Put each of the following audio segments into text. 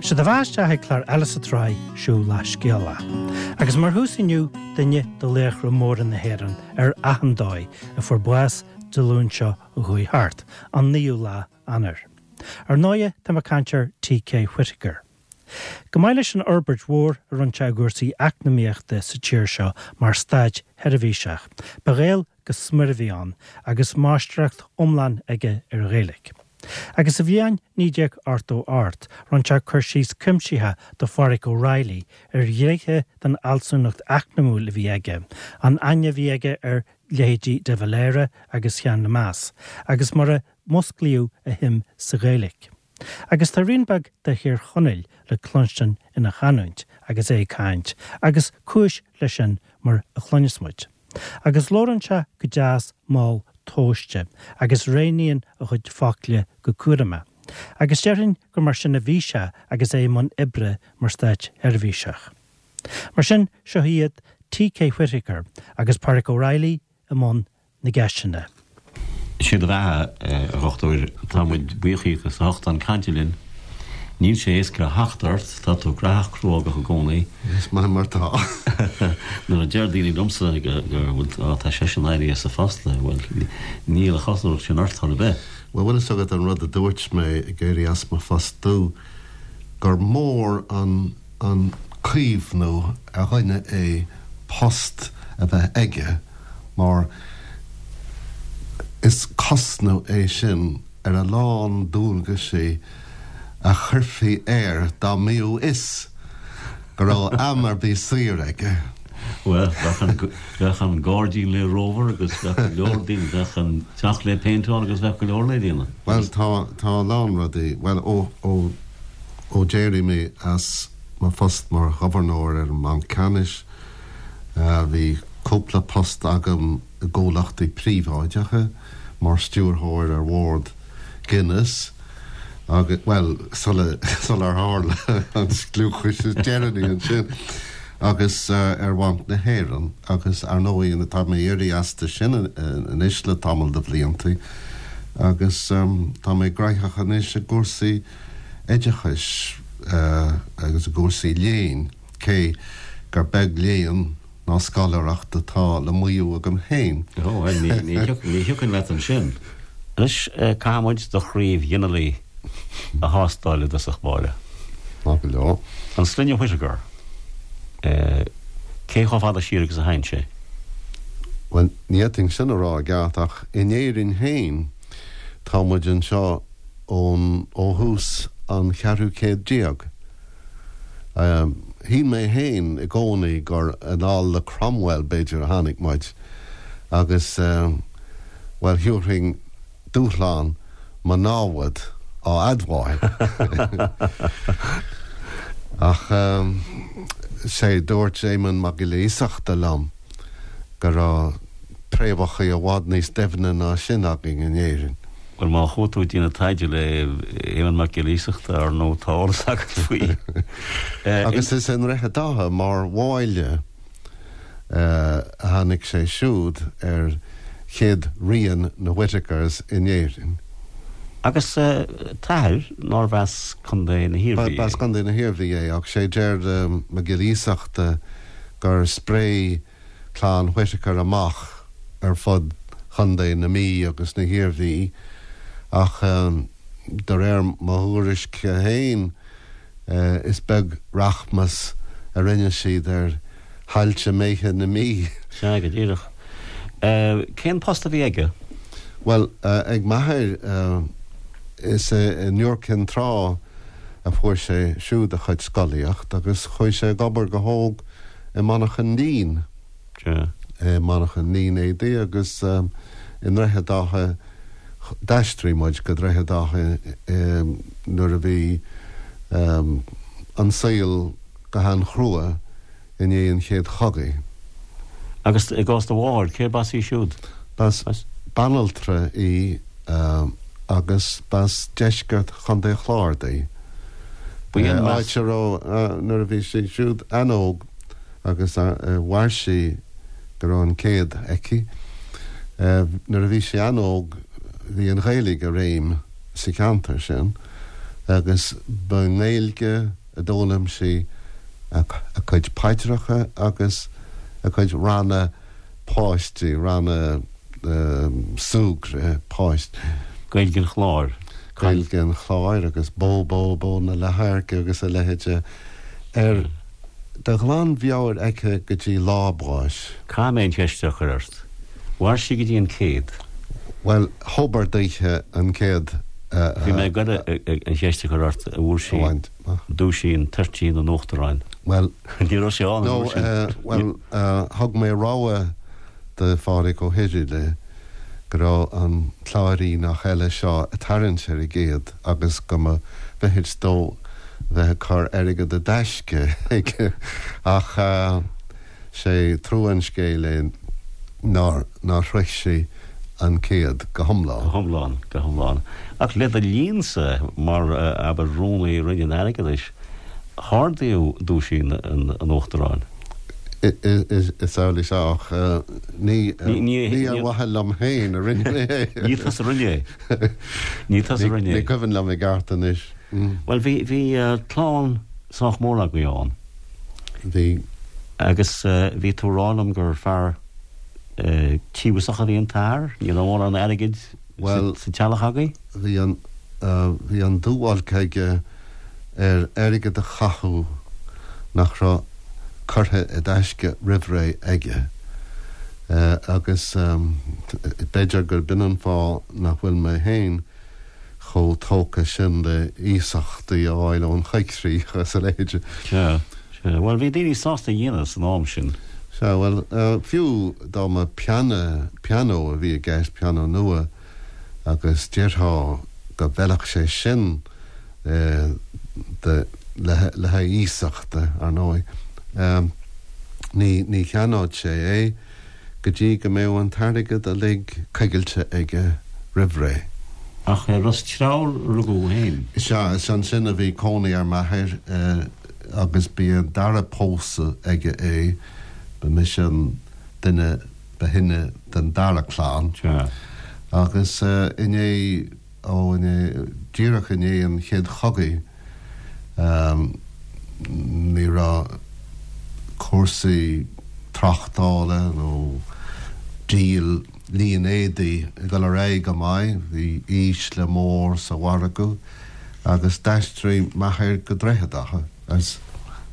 Sé do bheatha isteach ag clár eile sa tsraith Siúl le Scéala. Agus mar thús inniu, duine de laochra móra na hÉireann ar achan dóigh a fuair bás Dé Luain seo a chuaigh thart, an 9ú lá Eanáir. Ar ndóighe, tá mé ag caint ar T.K. Whitaker. Chomh maith leis an fhorbairt mhór a rinne sé i gcúrsaí eacnamaíochta sa tír seo mar státseirbhíseach, ba Ghael go smior a bhí ann agus máistreacht iomlán aige ar an Ghaeilge. Agus sa bhliain 1988 rinne sé cur síos cuimsitheach do Phádhraic O'Reilly ar ghnéithe den fhealsúnacht eacnamúil a bhí aige, an aithne a bhí aige ar leithéidí de Valera agus Seán Lemass, agus mar a musclaíodh a shuim sa Ghaeilge. Agus tá rian beag de Thír Chonaill le cluinstin ina chanúint agus é ag caint, agus cúis leis sin mar a chluinfeas muid. Agus labhrann sé go deas mall tomhaiste agus roghnaíonn a chuid focla go cúramach. Agus déarfainn gur mar sin a bhí sé agus é i mbun oibre mar státseirbhíseach. Mar sin, seo iad T.K. Whitaker agus Pádraic O'Reilly i mbun na gceisteanna. Sé do bheatha, a Dhochtúir. Tá muid buíoch díot as ucht a bheith chun cainte linn. Níl sé éasca theacht ort, tá tú graitheach cruógach i gcónaí. Is maith mar tá. Nuair a deir daoine liomsa go bhfuil, á, tá seisean éirithe as a phost, bhuel, níl an chosúlacht sin ort chor ar bith. Bhuel, bhfuil fhios agat an rud a dúirt mé ag éirí as mo phostú, gur mór an an caomhnú ar dhuine é post a bheith aige mar is cosnamh é sin ar a lán dualgaisí a chuirfí air dá mbíodh fhios go raibh am ar bith saor aige. Bhuel, bheadh an gairdín le rómhar agus bheadh go leor daoine, bheadh an teach le péinteáil agus bheadh go leor le déanamh. Bhuel, tá, tá a lán rudaí, bhuel, ó, ó, Ó d'éirigh mé as mo phost mar Ghobharnóir ar an mBanc Ceannais, bhí cúpla post agam i gcomhlachtaí príobháideacha, mar stiúrthóir ar bhord Guinness agus, bhuel, sular tharla an scliúchas is deireanaí ansin, agus ar Bhanc na hÉireann agus, ar ndóigh, tá mé éirithe astu sin anois le tamall de bhlianta agus tá mé graitheach anois i gcúrsaí oideachais agus i gcúrsaí léinn, cé gur beag léann ná scoláireacht atá le maíomh agam féin. Ó, bhuel, ní thiocfainn leat ansin. Anois, caithfidh muid do chraobh ghinealaigh a thástáil i dtosach báire. Maith go leor. An sloinne Whitaker, cé chomh fada siar agus a théann sé? Bhuel, ní fhéadfainn sin a rá i gceart, ach in Éirinn féin, tá muid anseo ón, ó thús an cheathrú céad déag. Shíl mé féin i gcónaí gur anall le Cromwell, b'fhéidir, a tháinig muid agus, bhuel, thiúrfainn dúshlán mo námhad á admháil. Ach, sé, dúirt Éamonn Mac Giolla Iasachta liom go raibh préamhacha i bhfad níos doimhne ná sin againn in Éirinn. Bhuel, má chuaigh tú ag déanamh taighde le Éamonn Mac Giolla Iasachta, ar ndóigh, tá eolas agat faoi. Agus is i nDroichead Átha, mar bháille, a tháinig sé siúd ar chéad rian na Whitakers in Éirinn. Agus t'athair, nárbh as Contae na hIarmhí é? B'as Contae na hIarmhí é, ach sé deir Mac Giolla Iasachta gur spréigh clann Whitaker amach ar fud Chontae na Mí agus na hIarmhí ach de réir mo thuairisce féin is beag rachmas a rinne siad ar thailte méithe na Mí. Sea, go díreach. Cén post a bhí aige? Bhuel, ag m'athair, is i Iúr Cinn Trá a fuair sé siúd a chuid scolaíocht agus chuaigh sé ag obair go hóg i monarchan lín, i monarchan línéadaí agus i nDroichead Átha, d'aistrigh muid go Droichead Átha nuair a bhí an saol go han-chrua i ndiaidh an Chéad Chogaidh. Agus i gcás do mháthar, cérb as í siúd? B'as banaltra í agus b'as deisceart Chontae an Chláir di. Áit a raibh, nuair a bhí sí siúd an-óg agus mhair sí go raibh an céad aici, nuair a bhí sí an-óg bhí an Ghaeilge i réim sa cheantar sin. Agus ba i nGaeilge a d'fhoghlaim sí a cuid paidreacha agus a cuid ranna páistí, ranna súgradh páistí. Gaeilge an Chláir. Gaeilge an Chláir agus Bó Bó Bó na Leathadhairce agus a leithéide ar de ghlanmheabhair aici go dtí lá a báis. Caithfidh mé an cheist seo a chur ort. Mhair sí go dtí an céad? Bhuel, thobar daoithe an céad a. Bhí mé ag goil an cheist a chur ort, an bhfuair sí duaisín toirtín an Uachtaráin. Bhuel. Ní raibh sé ann an uair sin. Bhuel, thug mé rabhadh do Phádraig Ó hIrighile go raibh an Cláiríneach eile seo ag tarraingt ar an gcéad agus go mba mhithid dó bheith ag cur airgead i dtaisce aige ach sé trua an scéil é nár nár shroich sí an céad go hiomlán. Go hiomlán, go hiomlán. Ach le do linnsa, mar, abair, Rúnaí Roinn an Airgeadais, hardaíodh duaisín an Uachtaráin. Is amhlaidh sea, ach ní ar mhaithe liom féin a rinne mé é. Ní tusa a rinne é. Ní tusa a rinne é. Ní cuimhin liom i gceart anois. Bhuel, bhí, bhí clann sách mór agaibh ann. Bhí. Agus bhí tú ag rá liom gur fear tíobhasach a bhí an t-athair, ní raibh mórán airgid sa teallach agaibh? Bhuel, bhí an, bhí an dúbhailc aige ar airgead a chaitheamh nach raibh curtha i dtaisce roimhré aige. Agus b'fhéidir gurb in an fáth nach bhfuil mé féin chomh tógtha sin le iasachtaí a fháil ón choigcríoch agus a leithéid. Sea, sea. Bhuel, bhí daoine sásta a dhéanamh san am sin. Sea, bhuel, fiú dá mba pianó, pianó a bhí i gceist, pianó nua, agus déarfá go bhfeilfeadh sé sin do, le haghaidh iasachta, ar ndóigh, ní, ní cheannódh sé é. go dtí go mbeadh an t-airgead uilig coigilte aige roimh ré. Ach i Ros Treabhair a rugadh thú féin. Sea, is ansin a bhí cónaí ar m'athair agus b'í an dara pósadh aige é, ba mise an duine ba shine den dara clann. Sea. Agus i ndiaidh. Ó, i ndiaidh, díreach i ndiaidh an Chéad Chogaidh, ní raibh cúrsaí tráchtála nó díol línéadaí ag dul ar aghaidh go maith, bhí ísle mór sa mhargadh agus d'aistrigh m'athair go Droichead Átha. Is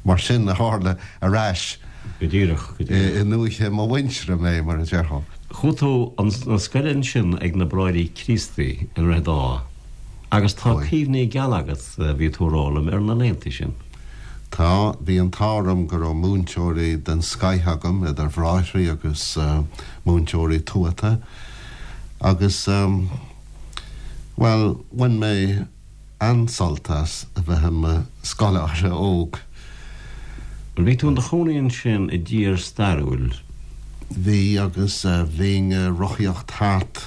mar sin a tharla ar ais Go díreach, go díreach. i ndúiche mo mhuintire mé, mar a déarfá. Chuaigh tú chun scoile ansin ag na Bráithre Críostaí i nDroichead Átha agus tá cuimhní geala agat, bhí tú a rá liom, ar na laethanta sin. Tá. Bhí an t-ádh orm go raibh múinteoirí den scoith agam, idir bhráithrí agus múinteoirí tuata agus, bhuel, bhain mé an-sult as a bheith i mo scoláire óg. Bhuel, bhí tú in do chónaí ansin i dtír stairiúil. Bhí, agus bhínn ag rothaíocht thart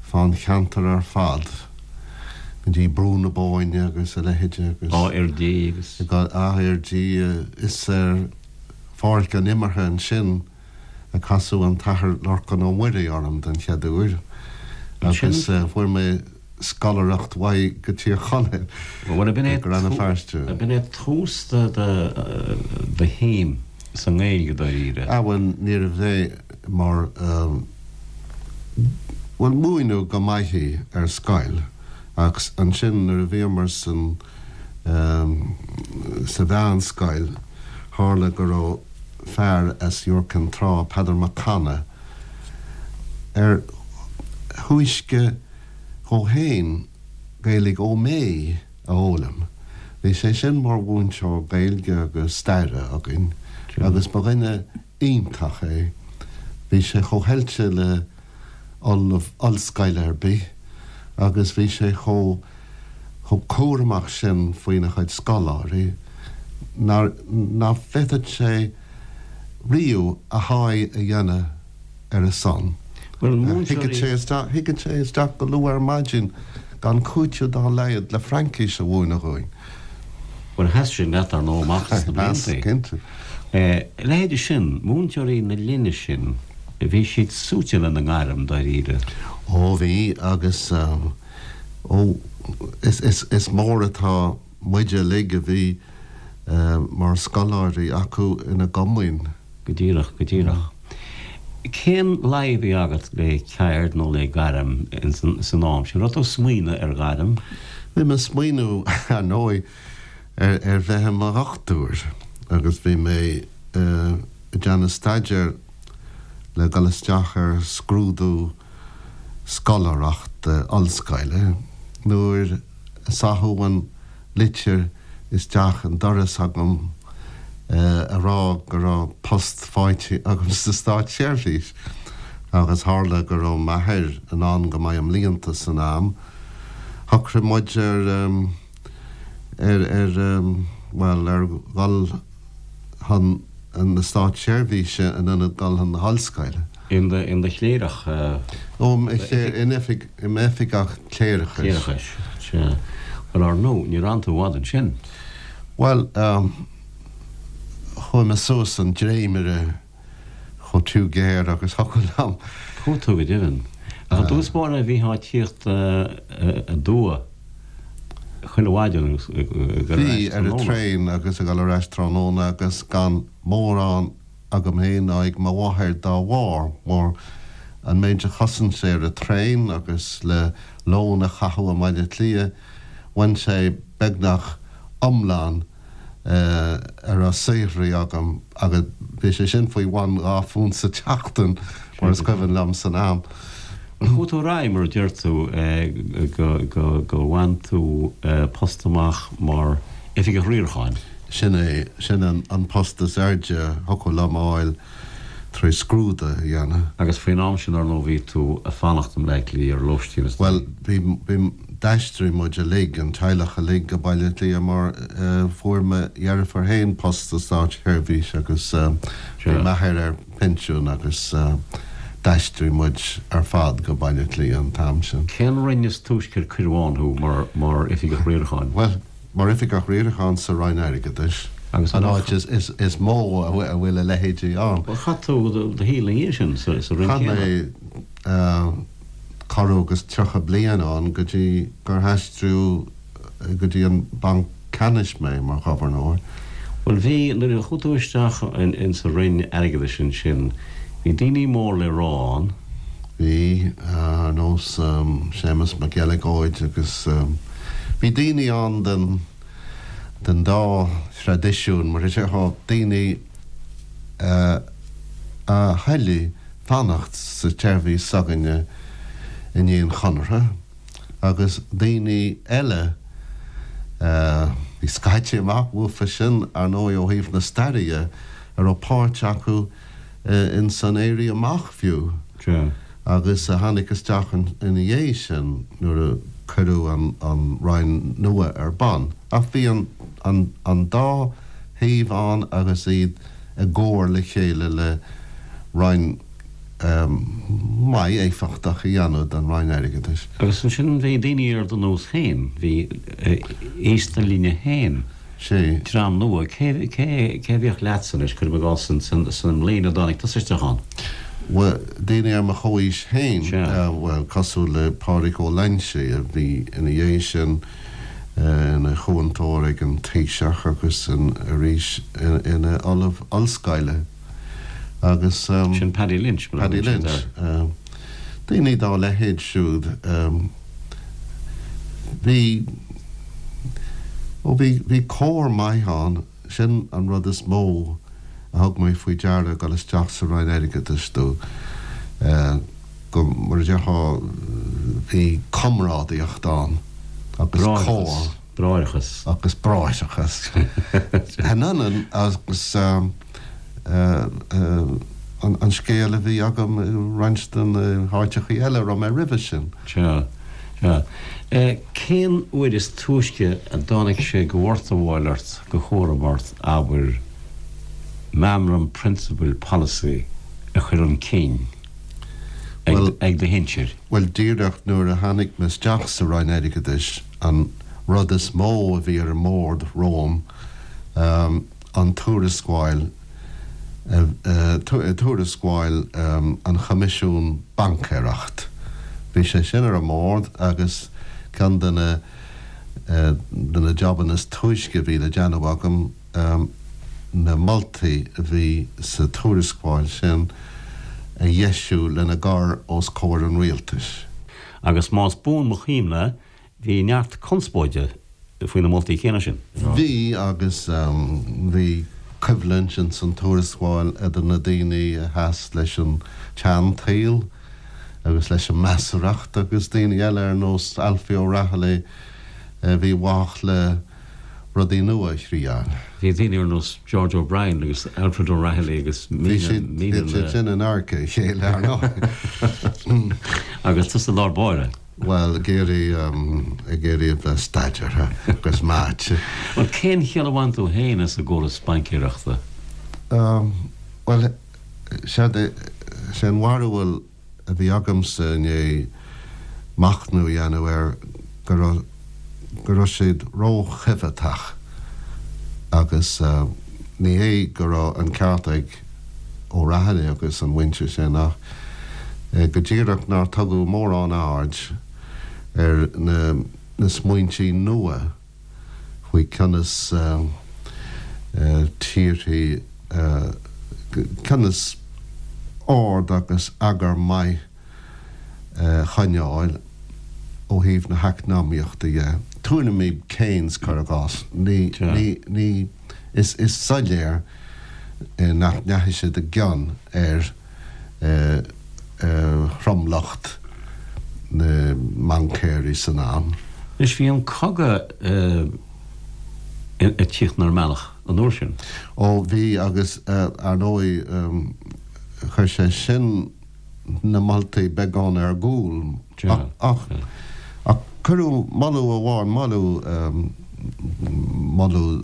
fán cheantar ar fad, go dtí Brú na Bóinne agus a leithéide agus. Áth Fhirdhí agus. Áth Fhirdhí, is ar pháirc an imeartha ansin a casadh an tAthair Lorcán Ó Muirí orm den chéad uair agus fuair mé scoláireacht uaidh go Tír Chonaill, Bhuel, go Rann na Feirste. B'in é tús do shuim sa nGaeilge dáiríre. Ah bhuel, níorbh é mar, bhuel, múineadh go maith í ar scoil ach ansin nuair a bhíomar san, sa mheánscoil, tharla go raibh fear as Iúr Cinn Trá, Peadar Mac Cana, ar thúisce dhó féin Gaeilge Ó Méith a fhoghlaim. Bhí sé sin mar mhúinteoir Gaeilge agus staire againn agus ba dhuine iontach é. Bhí sé chomh hoilte le ollamh ollscoile ar bith agus bhí sé chomh chomh cúramach sin faoina chuid scoláirí nár ná féadfadh sé riamh a sháith a dhéanamh ar a son. Bhuel, múinteoirí. Thigeadh sé isteach, thigeadh sé isteach go luath ar maidin gan cúiteamh dá laghad le Fraincis a mhúineadh dhúinn. Bhuel, sheas sin leat, ar ndóigh, amach sna blianta. Sheas, cinnte. A leithéide sin, múinteoirí na linne sin, bhí siad suaite lena ngairm, dáiríre. Ó, bhí, agus. Ó, is mór atá muide uilig a bhí mar scoláirí acu ina gcomaoin. Go díreach, go díreach. Cén luí a bhí agat le ceird nó le gairm san am sin? Raibh tú ag smaoineamh ar ghairm? Bhí mé ag smaoineamh, ar ndóigh, ar bheith i mo dhochtúir agus bhí mé ag déanamh staidéir le dul isteach ar scrúdú scoláireachta ollscoile nuair a saitheadh an litir isteach an doras agam a rá go raibh post faighte agam sa státseirbhís agus tharla go raibh m'athair anonn go maith i mblianta san am, shocraigh muid ar, ar, ar, bhuel, ar dhul chun na státseirbhíse in ionad dul chun na hollscoile. In do chléireach? Ó, in oifig, i m'oifigeach cléireachais. Cléireachais, sea. Bhuel, ar ndóigh, níor fhan tú i bhfad ansin. Bhuel, chuaigh mé suas an dréimire chomh tiubh géar agus thiocfadh liom. Chuaigh tú go deimhin. Ach i dtús báire bhítheá ag tíocht aduaidh chuile mhaidin agus ag dul ar Bhí, ais ar an tráthnóna. traein agus ag dul ar ais tráthnóna agus gan mórán agam féin ná ag mo mháthair dá bharr, mar an méid a chosain sé ar an traein agus le lón a chaitheamh i mBaile Átha Cliath, bhain sé beagnach iomlán a raibh saothraithe agam agus bhí sé sin faoi bhun £2 sa tseachtain, mar is cuimhin liom san am. Chuaigh tú ar aghaidh, mar a deir tú, go bhain tú post amach mar Oifigeach Riaracháin. Sin é, sin an post is airde a thiocfadh liom a fháil tar éis scrúdú a dhéanamh. Agus faoin am sin, ar ndóigh, bhí tú ag fanacht i mBleá Cliath ar lóistín is Bhuel, bhí, bhí, d'aistrigh muid uilig, an teaghlach uilig, go Baile Átha Cliath mar fuair mo dheirfiúr féin post sa státseirbhís agus bhí m'athair ar pinsiún agus d'aistrigh muid ar fad go Baile Átha Cliath an t-am sin. Cén roinn is túisce ar cuireadh ann thú mar, mar Oifigeach Riaracháin? Bhuel, Mar Oifigeach Riaracháin sa Roinn Airgeadais, an áit is mó a bhfuil a leithéidí ann. Bhuel, chaith tú do shaol ina dhiaidh sin sa Roinn céanna. Chaith mé corradh agus 30 bliain ann go dtí gur aistríodh go dtí an Banc Ceannais mé mar Ghobharnóir. Bhuel, bhí, nuair a chuaigh tú isteach insa Roinn Airgeadais ansin, bhí daoine mór le rá ann. Bhí, ar nós Séamus Mac Eileagóid agus bhí daoine ann den den dá thraidisiún, mar a déarfá, daoine a thoiligh fanacht sa tseirbhís s'againne i ndiaidh an Chonartha agus daoine eile a bhí scaite amach uafa sin, ar ndóigh, ó thaobh na staire dhe, a raibh páirt acu ins an Éirí Amach fiú, agus a tháinig isteach ina dhiaidh sin nuair a cuireadh an Roinn nua ar bun. Ach bhí an dá thaobh ann agus iad i gcomhar le chéile le Roinn maith éifeachtach a dhéanamh den Roinn Airgeadais. Agus ansin bhí daoine ar do nós féin, bhí aos do linne féin. Sea. Dream nua. Cé, cé, cé a bhíodh leatsa anois, cuirim i gcás, san mbliain a dtáinig tusa isteach ann? Bhuel, daoine ar mo chomhaois féin, Sea. bhuel, cosúil le Pádraig Ó Loingsigh, a bhí ina dhiaidh sin ina chúntóir ag an Taoiseach agus arís ina ollamh ollscoile agus. Sin Paddy Lynch, mar a Paddy thugann siad Lynch. air. Daoine dá leithéid siúd. Bhí, ó bhí, bhí comhar maith ann, sin an rud is mó a thug mé faoi deara ag dul isteach sa Roinn Airgeadais do, go, mar a déarfá, bhí comrádaíocht ann agus comhar. Bráithreachas. Agus bráithreachas. An ionann agus an scéal a bhí agam i roinnt de na háiteachaí eile a raibh mé roimhe sin. Sea, sea. Cén uair is túisce a dtáinig sé de mhortabháil ort, de chúram ort, abair, meamram prionsabail polasaí a chur chun cinn ag do shinsir? Bhuel, díreach nuair a tháinig mé isteach sa Roinn Airgeadais, an rud is mó a bhí ar an mbord romham, an tuarascáil, tuarascáil an Choimisiún Baincéireacht. Bhí sé sin ar an mbord agus Ceann de na de na jabanna is túisce a bhí le déanamh agam, na moltaí a bhí sa tuarascáil sin a dheisiú lena gcur os comhair an rialtais. Agus más buan mo chuimhne, bhí neart conspóide faoi na moltaí céanna sin. Bhí, agus bhí coimhlint ins an tuarascáil idir na daoine a sheas leis an tseantsaol agus leis an measarthacht agus daoine eile ar nós Alfie O'Rahilly a bhí i bhfách le rudaí nua a thriáil. Bhí daoine ar nós George O'Brien agus Alfred O'Rahilly agus míle, míle. Bhí siad sin in adharca a chéile, ar ndóigh. Agus tusa i lár báire. Bhuel, ag iarraidh, ag iarraidh a bheith staidéartha agus meáite. Bhuel, cén chiall a bhain tú féin as an gcóras baincéireachta? Bhuel, séard é, sé an bharúil a bhí agamsa i ndiaidh machnamh a dhéanamh air go raibh, go raibh siad ró-choimheatach agus ní hé go raibh an ceart ag O'Rahilly agus an mhuintir sin ach go díreach nár tugadh mórán aird ar na smaointí nua faoi conas tíorthaí, conas ord agus eagar maith a choinneáil ó thaobh na heacnamaíochta dhe. Tuairimí Keynes, cuir i gcás, ní, ní, ní, is, is soiléir nach ndeachaigh siad i gcion ar thromlach na mbaincéirí san am. Anois, bhí an cogadh ag tíocht inár mbealach an uair sin. Ó, bhí, agus ar ndóigh, chuir sé sin na moltaí beagán ar gcúl. Ach cuireadh moladh amháin, moladh, moladh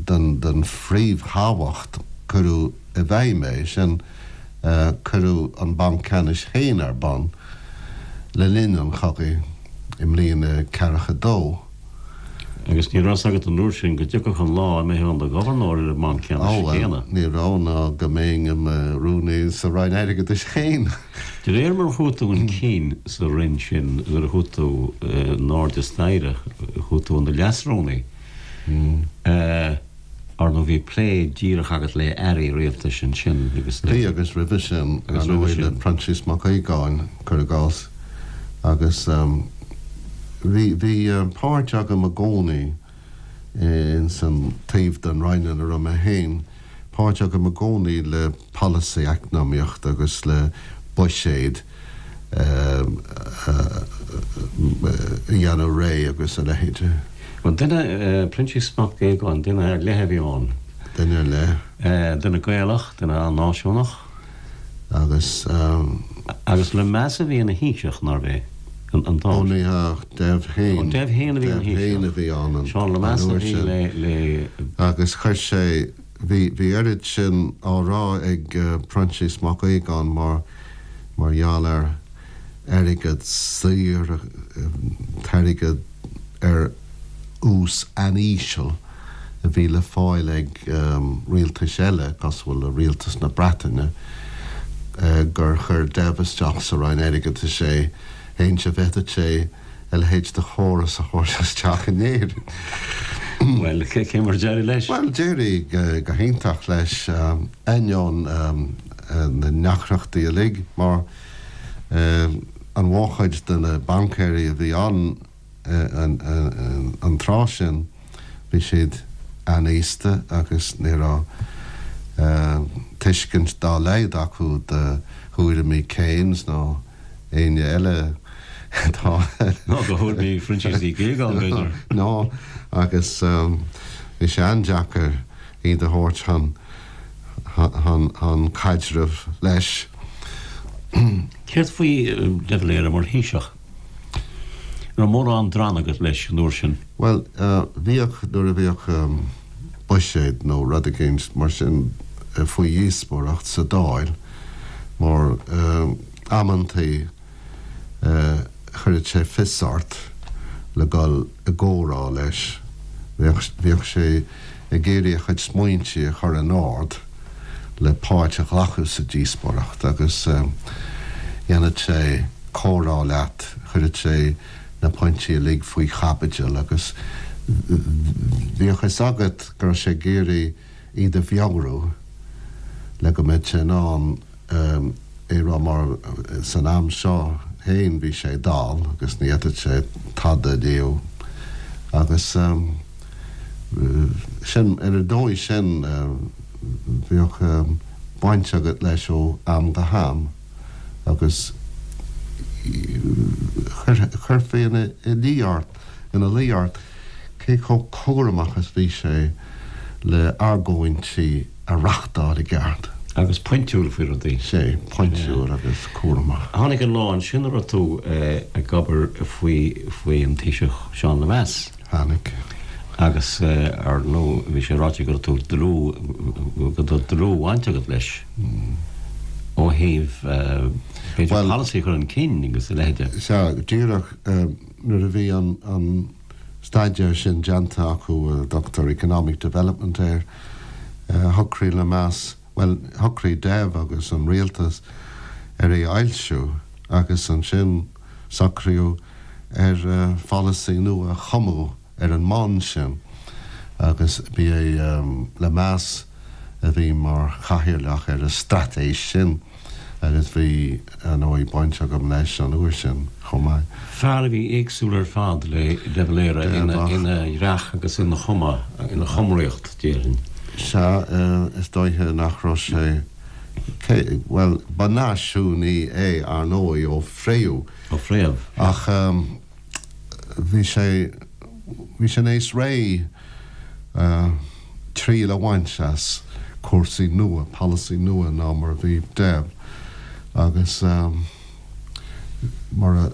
den phríomhthábhacht, cuireadh i bhfeidhm é sin, cuireadh an Banc Ceannais féin ar bun le linn an chogaidh i mbliain a ceathracha dó. Agus ní raibh fhios agat an uair sin go dtiocfadh an lá a mbeifeá in do ghobharnóir ar an mBanc Ceannais céanna. Ó, bhuel, ní raibh, ná go mbeinn i mo rúnaí sa Roinn Airgeadais féin. De réir mar a chuaigh tú chun cinn sa Roinn sin, nuair a chuaigh tú in airde staighre, chuaigh tú in do leasrúnaí. Ar ndóigh bhí plé díreach agat le airí rialtais ansin agus le. Bhí agus roimhe sin, ar ndóigh, le Proinsias Mac Aogáin, cuir i gcás, agus bhí, bhí páirt agam i gcónaí ins an taobh den Roinn ina raibh mé féin, páirt agam i gcónaí le polasaí eacnamaíochta agus le buiséad a dhéanamh réidh agus a leithéid. Bhuel, duine, Proinsias Mac Aogáin, duine ar leith a bhí ann. Duine ar leith. Duine Gaelach, duine an-náisiúnach. Agus. Agus Lemass a bhí ina Thaoiseach, nárbh é? An t-am. Ó ní hea, Dev féin. Ó, Dev féin a bhí ina Thaoiseach. Dev féin a bhí ann an Seán Lemass a bhí le, le. Agus chuir sé, bhí, bhí oiread sin á rá ag Proinsias Mac Aogáin mar, mar gheall ar airgead saor, t-airgead ar ús an-íseal a bhí le fáil ag rialtais eile, cosúil le rialtas na Breataine, gur chuir Dev isteach sa Roinn Airgeadais é, fhéin-se bhféadfadh sé a leithéid de chóras a thabhairt isteach in Éirinn. Bhuel, cé mar a d'éirigh leis? Bhuel, d'éirigh go hiontach leis, ainneoin na ndeacrachtaí uilig, mar an mhórchuid de na baincéirí a bhí ann an tráth sin, bhí siad an-aosta agus ní raibh tuiscint dá laghad acu do thuairimí Keynes ná éinne eile atá. Ná do thuairimí Phroinsias Uí Ghíogáin, b'fhéidir. Ná, agus bhí sé an-deacair iad a thabhairt chun chun caidrimh leis. Céard faoi de Valera mar Thaoiseach? An raibh mórán drann agat leis an uair sin? Bhuel, bhíodh, nuair a bhíodh buiséad nó rud eicínt mar sin faoi dhíospóireacht sa Dáil, mar amantaí chuireadh sé fios ort le dul i gcomhrá leis. Bhíodh, bhíodh sé ag iarraidh a chuid smaointe a chur in ord le páirt a ghlacadh sa díospóireacht agus dhéanadh sé comhrá leat, chuireadh sé. na pointí uilig faoi chaibidil agus bhíodh a fhios agat go raibh sé ag iarraidh iad a mheabhrú le go mbeadh sé in ann é rá mar san am seo féin bhí sé dall agus ní fhéadfadh sé tada a léamh agus sin ar an dóigh sin bhíodh baint agat leis ó am go ham agus chuirfí ina luí ort ina luí ort cé chomh cúramach is bhí sé le argóintí a reachtáil i gceart. Agus pointiúil faoi rudaí. Sea, pointiúil agus cúramach. Tháinig an lá ansin a raibh tú ag obair faoi faoi an Taoiseach Seán Lemass. Tháinig. Agus ar ndóigh bhí sé ráite go raibh tú dlúth, go raibh dlúthbhaint agat leis ó thaobh b'fhéidir polasaí a chur chun cinn agus a leithéide. Sea, díreach nuair a bhí an staidéar sin déanta acu, a dtugtar economic development air, shocraigh Lemass, bhuel, shocraigh Dev agus an rialtas ar é a fhoilsiú agus ansin socraíodh ar pholasaí nua a chumadh ar an mbonn sin agus ba é Lemass a bhí mar chathaoirleach ar an straitéis sin. Agus bhí, ar ndóigh, baint agam leis an uair sin chomh maith. Fear a bhí éagsúil ar fad le De Valera ina dhreach agus ina chuma, ina chumraíocht, déarfainn. Sea, is dóiche nach raibh sé, cé, bhuel, ba náisiúnaí é, ar ndóigh, ó phréamh. Ó phréamh, sea. Ach bhí sé, bhí sé níos réidh. triail a bhaint as cúrsaí nua, polasaí nua ná mar a bhí Dev agus mar a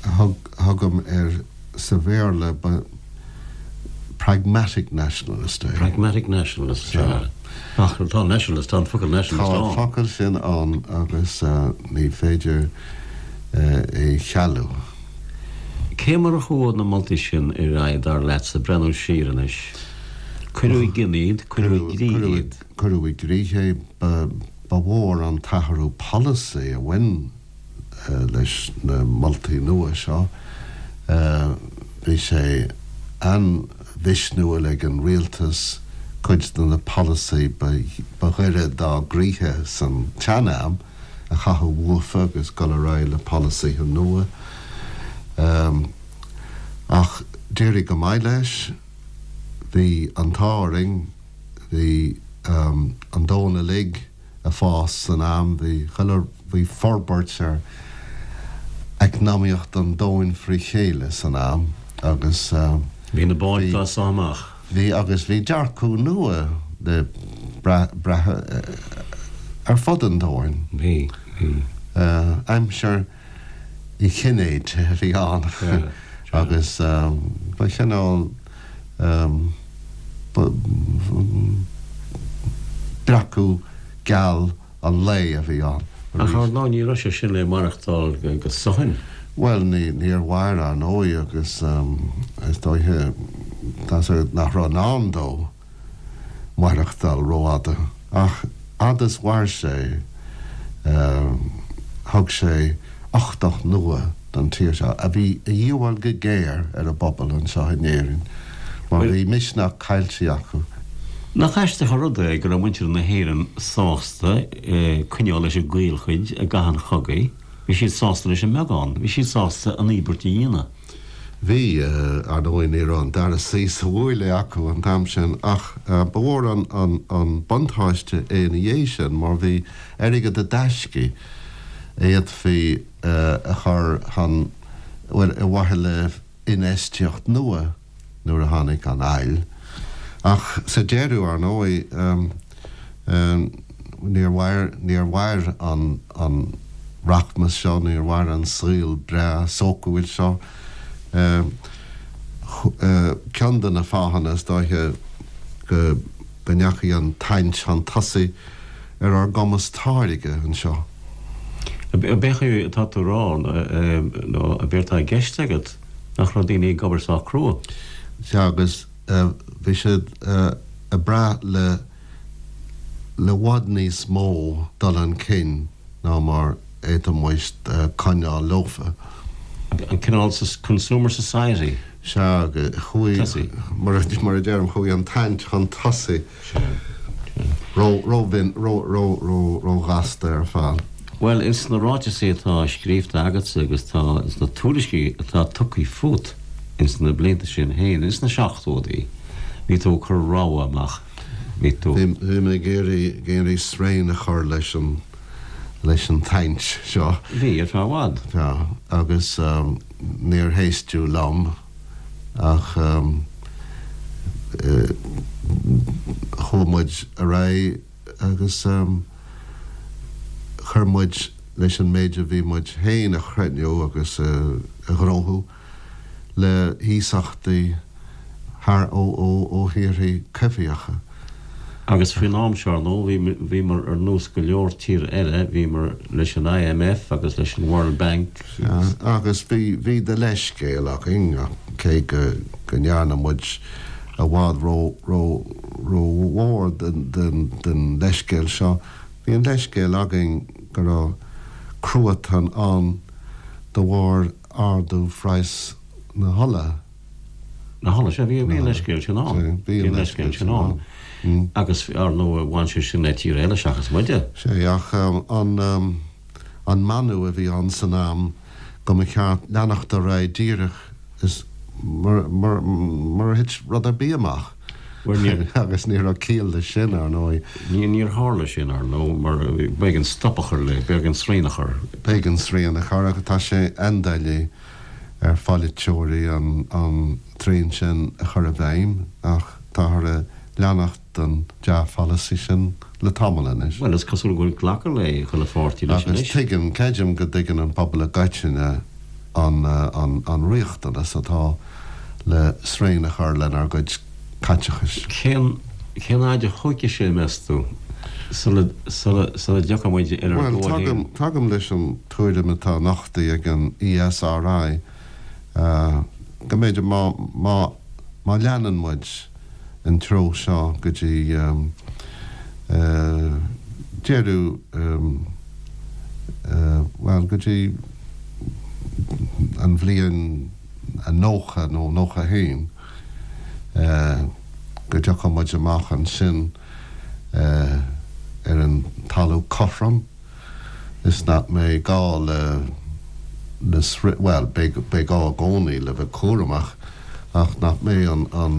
thugaim air sa Bhéarla ba pragmatic nationalist é. Pragmatic nationalist, sea. Ach tá nationalist, tá an focal nationalist ann. Tá an focal sin ann agus ní féidir é chealú. Cé mar a chuaigh na moltaí sin ar aghaidh, dar leatsa, breathnú siar anois? Cuireadh i gcrích iad, cuireadh i gcrích iad. Cuireadh i gcrích é. Ba mhór an t-athrú polasaí a bhain leis na moltaí nua seo. Bhí sé an-mhisniúil ag an rialtas cuid de na polasaí ba ghaire dá gcroíthe san tsean-am, a chaitheamh uafa agus dul ar aghaidh le polasaithe nua. Ach d'éirigh go maith leis. Bhí an t-ádh orainn, bhí an domhan uilig ag fás san am, bhí chuile, bhí forbairt ar eacnamaíocht an domhain fré chéile san am agus Bhí na báid dá sá amach. Bhí, agus bhí dearcadh nua le brath ar fud an domhain. Bhí, bhí. Aimsir Uí Chinnéide a bhí ann agus ba chineál breacadh geal an lae a bhí ann Ach ar ndóigh ní raibh sé sin le maireachtáil go suthain. Bhuel, níor mhair, ar ndóigh, agus is dóiche nach raibh i ndán dó maireachtáil rófhada. Ach fhad is mhair sé, thug sé uchtach nua don tír seo, a bhí a dhíobháil go géar ar an bpobal anseo in Éirinn, mar bhí misneach caillte acu. Nach aisteach an rud é go raibh muintir na hÉireann sásta coinneáil leis an gcaolchuid i gcath an chogaidh, bhí siad sásta leis an mbeagán, bhí siad sásta an íobairt a dhéanamh. Bhí, ar ndóigh, ní raibh an dara suí sa bhuaile acu an t-am sin, ach ba mhór an buntáiste é ina dhiaidh sin mar bhí airgead i dtaiscí a fhéadfaí a chur chun, bhuel, ar mhaithe le infheistíocht nua nuair a tháinig an fhail. Ach sa deireadh, ar ndóigh, níor mhair, níor mhair an, an rachmas seo, níor mhair an saol breá sócúil seo. Ceann de na fáthanna, is dóiche, go, go ndeachaigh an tsaint chun tosaigh ar ár gcumas táirge anseo. Ab é atá tú a rá, nó ab éard atá i gceist agat, nach raibh daoine ag obair sách crua? Sea, agus bhí siad ag brath le le i bhfad níos mó dul chun cinn ná mar a d'fhéadfadh muid coinneáil leofa. An cineál consumer society. Sea, chuaigh, mar a deirim, chuaigh an tsaint chun tosaigh ró-ghasta ar fad. Bhuel, ins na ráiteasaí atá scríobhta agatsa agus tá ins na tuairiscí atá tugtha fút ins na blianta sin féin, ins na seachtóidí, bhí tú ag cur rabhadh amach, bhí tú. Bhí mé ag iarraidh srian a chur leis an leis an tsaint seo. Bhí, ar feadh i bhfad. Sea, agus níor héisteadh liom ach chuaigh muid ar aghaidh agus chuir muid leis an méid a bhí muid féin a chruinniú agus a ghnóthú le hiasachtaí thar ó ó thíorthaí coimhthíocha. Agus faoin am seo, ar ndóigh, bhíomar ar nós go leor tíortha eile, bhíomar leis an IMF agus leis an World Bank. Sea, agus bhí, bhí de leithscéal againn, cé go, go ndearna muid i bhfad ró, ró, rómhór den, den, den leithscéal seo, bhí an leithscéal againn go raibh cruatan ann de bharr ardú phraghas na hola. Na hola, sea, bhí an leithscéal sin ann. Bhí an leithscéal sin ann. Agus, ar ndóigh, bhain sé sin le tír eile seachas muide. Sea, ach an meanú a bhí ann san am go mba cheart leanacht ar aghaidh díreach is mar a thit rud ar bith amach. Agus ní raibh ciall leis sin, ar ndóigh. Níor tharla sin, ar ndóigh, mar b'éigean stop a chur le, b'éigean srian a chur. B'éigean srian a chur agus tá sé an-doiligh ar pholaiteoirí an tsrian sin a chur i bhfeidhm ach táthar ag leanacht den dea-pholasaí sin le tamall anois. Bhuel, is cosúil go bhfuil glactha le chuile pháirtí leis anois. Agus tuigeann, creidim go dtuigeann an pobal i gcoitinne an riachtanas atá le srian a chur lenár gcuid caiteachais. Cén cén fhaid a thógfaidh sé, meas tú, sula sula sula dtiocfaidh muid ar ár Bhuel, gcóir féin? tagaim leis an tuairim atá nochtaithe ag an ESRI go mb'fhéidir má má má leanann muid an treo seo go dtí deireadh bhuel go dtí an bhliain 90 nó 91 go dtiocfaidh muid amach ansin ar an talamh cothrom is nach mbeidh gá le le bhuel beidh beidh gá i gcónaí le bheith cúramach ach nach mbeidh an an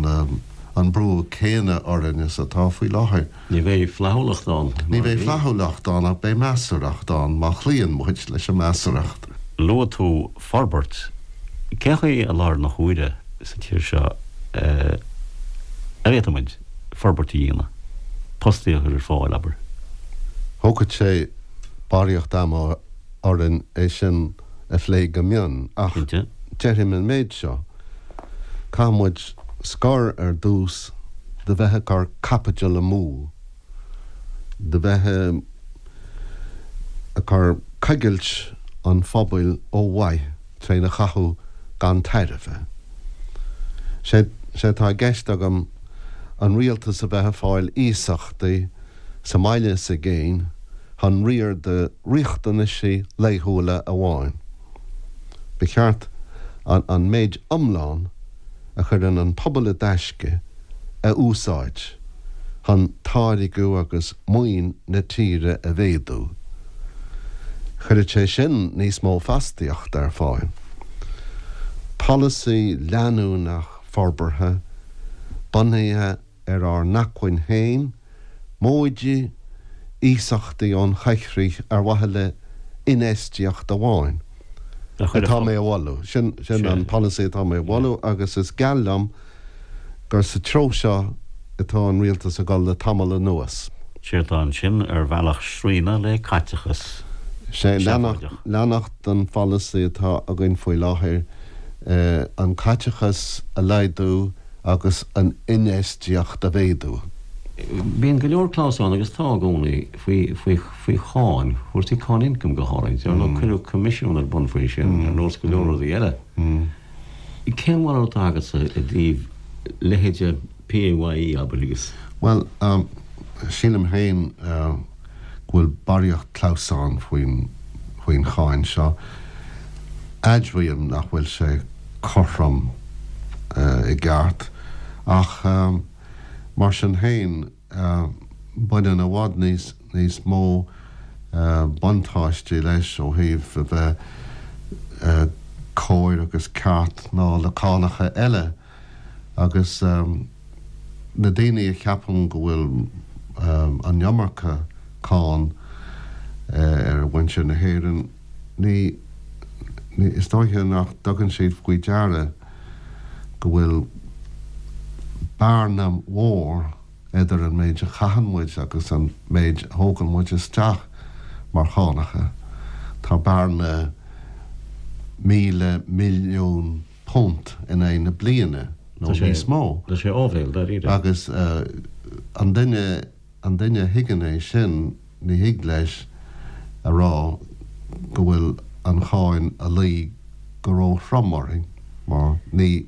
an brú céanna orainn is atá faoi láthair. Ní bheidh flaithiúlacht ann. Ní bheidh flaithiúlacht ann ach beidh measarthacht ann má chloíonn muid leis an measarthacht. Luaigh tú forbairt. Cén chaoi i láthair na huaire sa tír seo a bhféadfadh muid forbairt a dhéanamh, postaí a chur ar fáil, abair? Thógfadh sé barraíocht ama orainn é sin a phlé go mion ach déarfainn an méid seo, caithfidh muid scor ar dtús de bheith ag cur caipitil amú, de bheith ag cur coigilt an phobail ó mhaith tréna chaitheamh gan tairbhe. Sé atá i gceist agam an rialtas a bheith ag fáil iasachtaí sa mbaile is i gcéin chun riar do riachtanaisí laethúla amháin. Ba cheart an méid iomlán a chuireann an pobal i dtaisce a úsáid chun táirgeadh agus maoin na tíre a mhéadú. Chuirfeadh sé sin níos mó fostaíochta ar fáil. Polasaí leanúnach forbartha, bunaithe ar ár n-acmhainn féin, móide iasachtaí ón choigchrích ar mhaithe le infheistíocht amháin, atá mé a mholadh. Sin an polasaí atá mé a mholadh agus is geal liom gur sa treo seo atá an rialtas ag dul le tamall anuas. Séard atá ansin ar bhealach srianadh le caiteachas Sé leanacht den pholasaí atá againn faoi láthair, an caiteachas a laghdú agus an infheistíocht a mhéadú. Bíonn go leor clamhsán, agus tá i gcónaí, faoi, faoi, faoi cháin, cúrsaí cáin ioncaim go háirid. Ar ndóigh cuireadh coimisiún ar bun faoi sin, ar nós go leor rudaí eile. Cén bharúil atá agatsa i dtaobh leithéide PAYE, abair, agus. Bhuel, sílim féin go bhfuil barraíocht clamhsán faoin, faoin cháin seo. Admhaím nach bhfuil sé cothrom i gceart, ach mar sin féin, baineann i bhfad níos níos mó buntáistí leis ó thaobh a bheith cóir agus ceart ná le cánacha eile. Agus na daoine a cheapann go bhfuil an iomarca cáin ar mhuintir na hÉireann, ní, ní, is dóiche nach dtugann siad faoi deara go bhfuil bearna mhór idir an méid a chaitheann muid agus an méid a thógann muid isteach mar chánacha. Tá bearna £1,000 milliún in aghaidh na bliana nó níos mó. Tá sé áibhéil, dáiríre. Agus an duine, an duine a thuigeann é sin, ní thig leis a rá go bhfuil an cháin a luí go ró-throm orainn mar ní,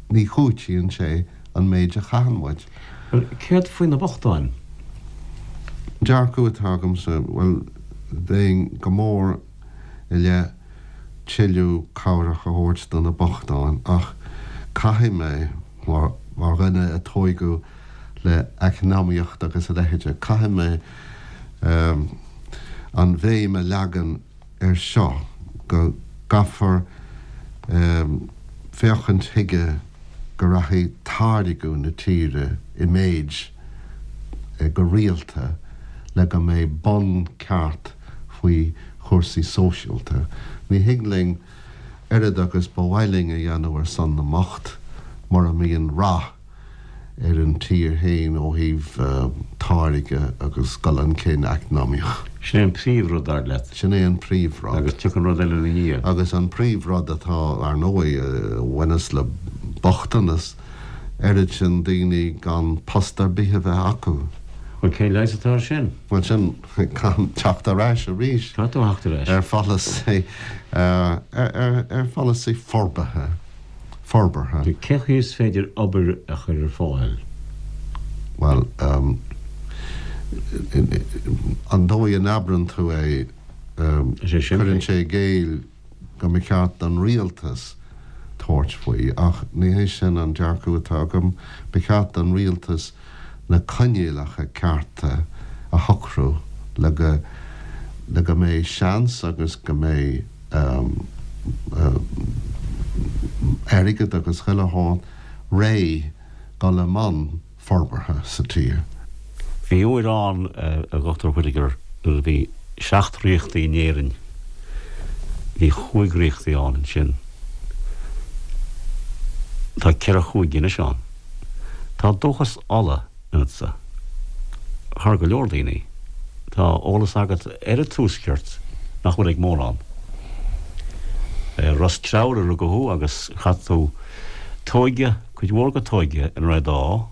ní chúitíonn sé an méid a chaitheann muid. Bhuel, céard faoi na bochtáin? An dearcadh atá agamsa, bhuel, bheinn go mór i leith tuilleadh cabhrach a thabhairt do na bochtáin ach caithfidh mé, mar dhuine a tóigeadh le eacnamaíocht agus a leithéide, caithfidh mé an bhéim a leagan air seo, go gcaithfear féachaint chuige go rachaidh táirgeadh na tíre i méid go rialta le go mbeidh bonn ceart faoi chúrsaí sóisialta. Ní thig linn oiread agus ba mhaith linn a dhéanamh ar son na mbocht mura mbíonn rath ar an tír féin ó thaobh táirge agus dul chun cinn eacnamaíoch. Sin é an príomhrud, dar leat? Sin é an príomhrud. Agus tiocfaidh an rud eile ina dhiaidh. Agus an príomhrud atá, ar ndóigh, a bhaineas le bochtanas, oiread sin daoine gan post ar bith a bheith acu. Bhuel, cén leigheas atá air sin? Bhuel, sin, caithfidh teacht ar ais arís. Caithfidh tú theacht ar ais. Ar pholasaí, ar pholasaí forbartha. forbartha. Cén chaoi is féidir obair a chur ar fáil? Bhuel, an dóigh a n-abrann tú é, cuireann sé i gcéill go mba cheart don rialtas tabhairt faoi, ach ní hé sin an dearcadh atá agam. Ba cheart don rialtas na coinníollacha cearta a shocrú le go le go mbeidh seans agus go mbeidh airgead agus chuile shórt réidh dul i mbun forbartha sa tír. Bhí uair ann, a Dhochtúir Whitaker, nuair a bhí seacht ríochtaí in Éirinn. Bhí chúig ríochtaí ann ansin. Tá ceithre chúige anois ann. Tá dóchas Uladh ionatsa. Thar go leor daoine. Tá eolas agat ar an Tuaisceart nach bhfuil ag mórán. I Ros Treabhair a rugadh thú agus chaith tú t'óige, cuid mhór de t'óige in Rath Dá.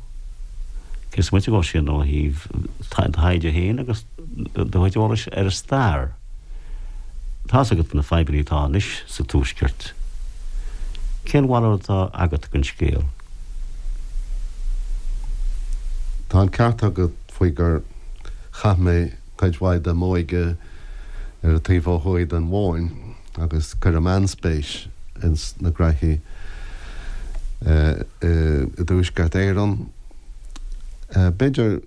Cé is moite dhó sin ó thaobh do thaighde féin agus do chuid eolais ar an stair. Tá's agat na fadhbanna atá anois sa Tuaisceart. Cén bharúil atá agat den scéal? Tá an ceart agat faoi gur chaith mé cuid mhaith de m'óige ar an taobh ó thuaidh den Bhóinn agus cuirim an-spéis ins na graithí i dTuaisceart Éireann. B'fhéidir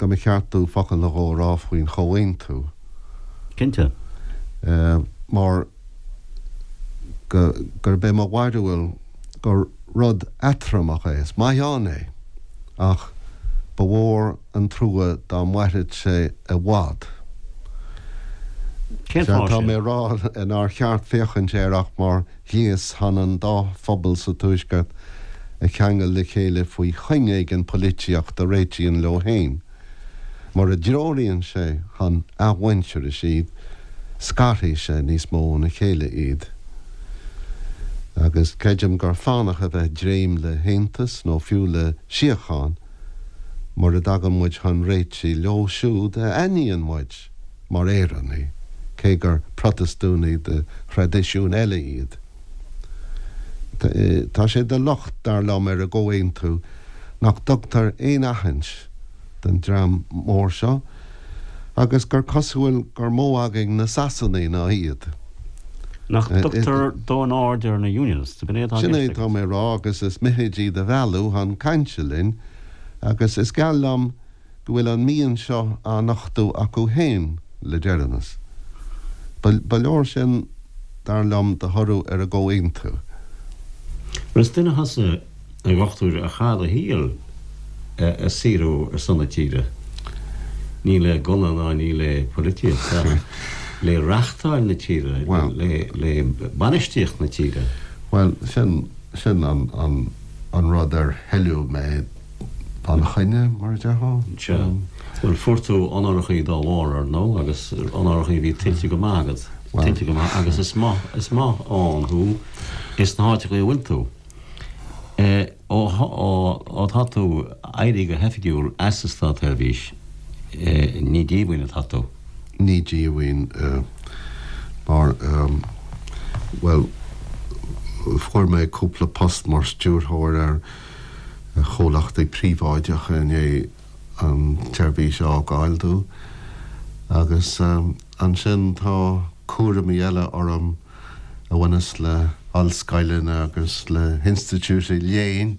go mba cheart domh focal nó dhó a rá faoin Chomhaontú. Cinnte. Mar go, gurb é mo bharúil gur rud eatramhach é. Is maith ann é, ach ba mhór an trua dá mairfeadh sé i bhfad. Cén fáth Tá sin? mé ag rá nár cheart féachaint air ach mar ghléas chun an dá phobal sa Tuaisceart a cheangal le chéile faoi chuing éigin polaitíochta a réitíonn leo féin. Mura dtreoraíonn sé chun athmhuintearais iad, scarfaidh sé níos mó óna chéile iad. Agus creidim gur fánach a bheith ag dréim le haontas nó fiú le síocháin mura dtagann muid chun réitigh leo siúd a aithníonn muid mar Éireannaigh, cé gur Protastúnaigh de thraidisiún eile iad. Tá sé de locht, dar liom, ar an gComhaontú nach dtugtar aon aithint don dream mór seo agus gur cosúil gur mó againn na Sasanaigh ná iad. Nach dtugtar dóthain aird ar na Unionists, ab in é atá i Sin gceist é atá agat? mé a rá agus is mithid iad a mhealladh chun cainte linn agus is geal liom go bhfuil an mian seo á nochtadh acu féin le deireanas. Ba leor sin, dar liom, de thoradh ar an gcomhaontú. Bhuel, is duine thusa, a Dhochtúir, a chaith do shaol ag saothrú ar son na tíre. Ní le gunna ná ní le poilitíocht ach le reachtáil na tíre, le bainistíocht na tíre. Bhuel, sin, sin an rud ar hoileadh mé. Gan choinne, mar a déarfá. Sea. Bhuel, fuair tú onórachaí dá bharr, ar ndóigh, agus onórachaí a bhí tuillte go maith agat. Tuillte go maith, agus is maith, is maith ann thú ins na háiteachaí a bhfuil tú. Ó, ó, ó tá tú éirithe go hoifigiúil as an státsheirbhís, ní díomhaoin atá tú. Ní díomhaoin, mar, bhuel, fuair mé cúpla post mar stiúrthóir ar chomhlachtaí príobháideacha i ndiaidh an tseirbhís a fhágáil domh agus ansin tá cúraimí eile orm a bhaineas le hollscoileanna agus le hinstitiúidí léinn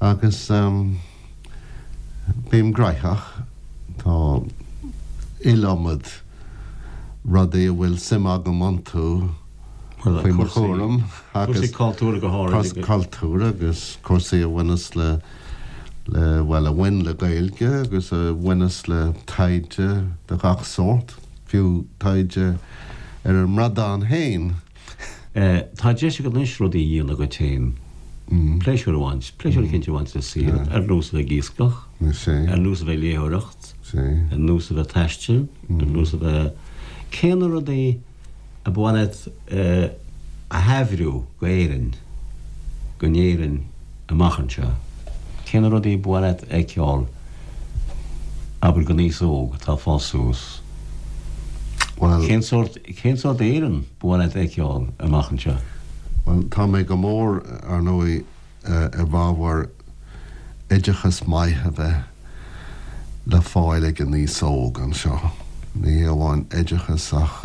agus bím gnaitheach. Tá iliomad rudaí a bhfuil suim agam iontu. faoi mo chúram agus cúrsaí cultúrtha go háirid. Cúrsaí cultúrtha agus cúrsaí a bhaineas le, le, bhuel, a bhain le Gaeilge agus a bhaineas le taighde de gach sórt, fiú taighde ar an mbradán féin. Tá deis agat anois rudaí a dhéanamh dhuit féin, pléisiúr a bhaint, pléisiúr eicínt a bhaint sa saol, ar nós a bheith ag iascach, ar nós a bheith ag léitheoireacht, ar nós a bheith ag taisteal, ar nós a bheith, cé na rudaí a ba mhaith leat a thaibhriú go Éirinn, go nÉirinn amach anseo? Cé na rudaí ba mhaith leat a fheiceáil, abair, don aos óg atá ag fás suas? Bhuel. Cén sórt, cén sórt Éireann ba mhaith leat a fheiceáil amach anseo? Bhuel, tá mé go mór, ar ndóigh, i bhfabhar oideachas maith a bheith le fáil ag an aos óg anseo. Ní hé amháin oideachas ach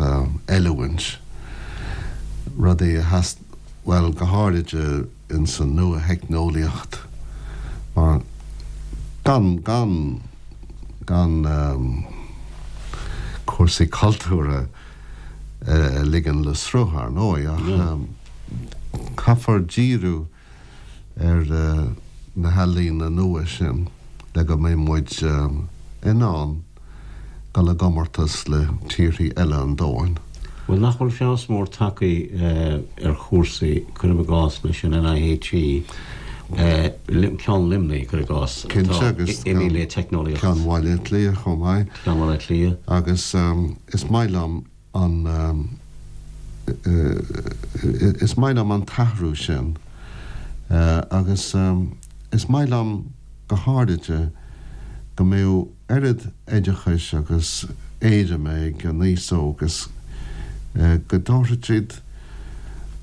oiliúint, rudaí a theas, bhuel, go háirid ins an nua-theicneolaíocht mar gan, gan, gan cúrsaí cultúrtha a ligean le sruth, ar ndóigh, ach caithfear díriú ar na healaíona nua sin le go mbeidh muid in ann dul i gcomórtas le tíorthaí eile an domhain. Bhuel, nach bhfuil feabhas mór tagtha ar chúrsaí, cuirim i gcás, leis an NIHE, ceann Luimnigh, cuir i gcás, atá imithe le teicneolaíocht. Ceann Bhaile Átha Cliath chomh maith. Ceann Bhaile Átha Cliath. Agus is maith liom an, is maith liom an t-athrú sin agus is maith liom go háiride go mbeadh oiread oideachais agus éirime ag an aos óg is go dtabharfadh siad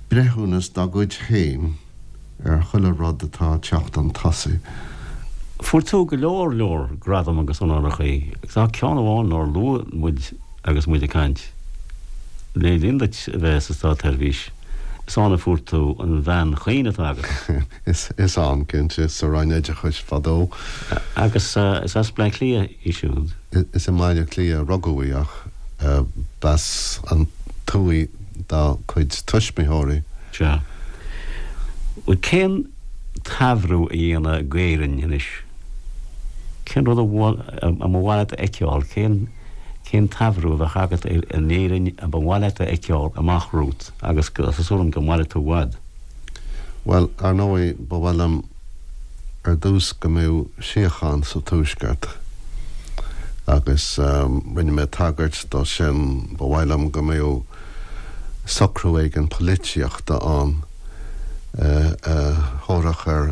breithiúnas dá gcuid féin. ar chuile rud atá ag teacht chun tosaigh. Fuair tú go leor leor gradam agus onórachaí, agus tá ceann amháin nár luaigh muid agus muid ag caint. Le linn duit a bheith sa státsheirbhís, is ann a fuair tú an bhean chaoin atá agat. Is ann, cinnte, sa Roinn Oideachais fadó. Agus is as Bleá Cliath í siúd. Is i mBaile Átha Cliath a rugadh í ach b'as an tuaith dá cuid tuismitheoirí. Sea. Bhuel, cén taibhriú a dhéanfá d'Éirinn anois? Cén rud a mba mhaith leat a fheiceáil? Cén, cén taibhriú a bheadh agat ar an Éirinn a ba mhaith leat a fheiceáil amach romhat agus tá súil agam go mairfidh tú i bhfad? Bhuel, ar ndóigh, ba mhaith liom ar dtús go mbeadh síocháin sa Tuaisceart agus rinne mé tagairt dó sin. Ba mhaith liom go mbeadh socrú éigin polaitíochta ann a thabharfadh ar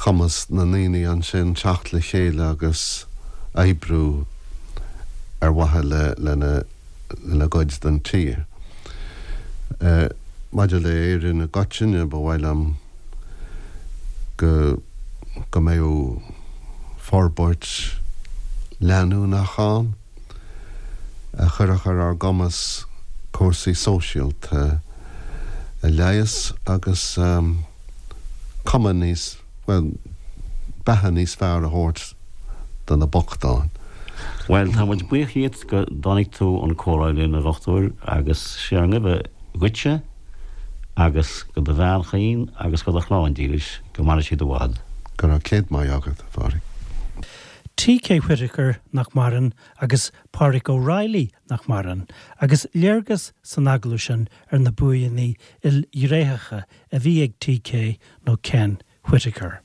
chumas na ndaoine ansin teacht le chéile agus oibriú ar mhaithe lena lena gcuid den tír. Maidir le Éirinn i gcoitinne, ba mhaith liom go go mbeadh forbairt leanúnach ann a chuirfeadh ar ár gcumas. cúrsaí sóisialta a leigheas agus cuma níos, bhuel, beatha níos fearr a thabhairt do na bochtáin. Bhuel, tá muid buíoch dhíot go dtáinig tú 'un comhrá linn, a Dhochtúir, agus sé ár nguibhe dhuitse agus go do bhean chaoin agus go do chlann dílis, go maire siad i bhfad. Go raibh céad maith agat, a Phádraig. T.K. Whitaker, nach maireann, agus Pádraig O'Reilly, nach maireann, agus léargas san agallamh sin ar na buanna ilghnéitheacha a bhí ag T.K. nó Ken Whitaker.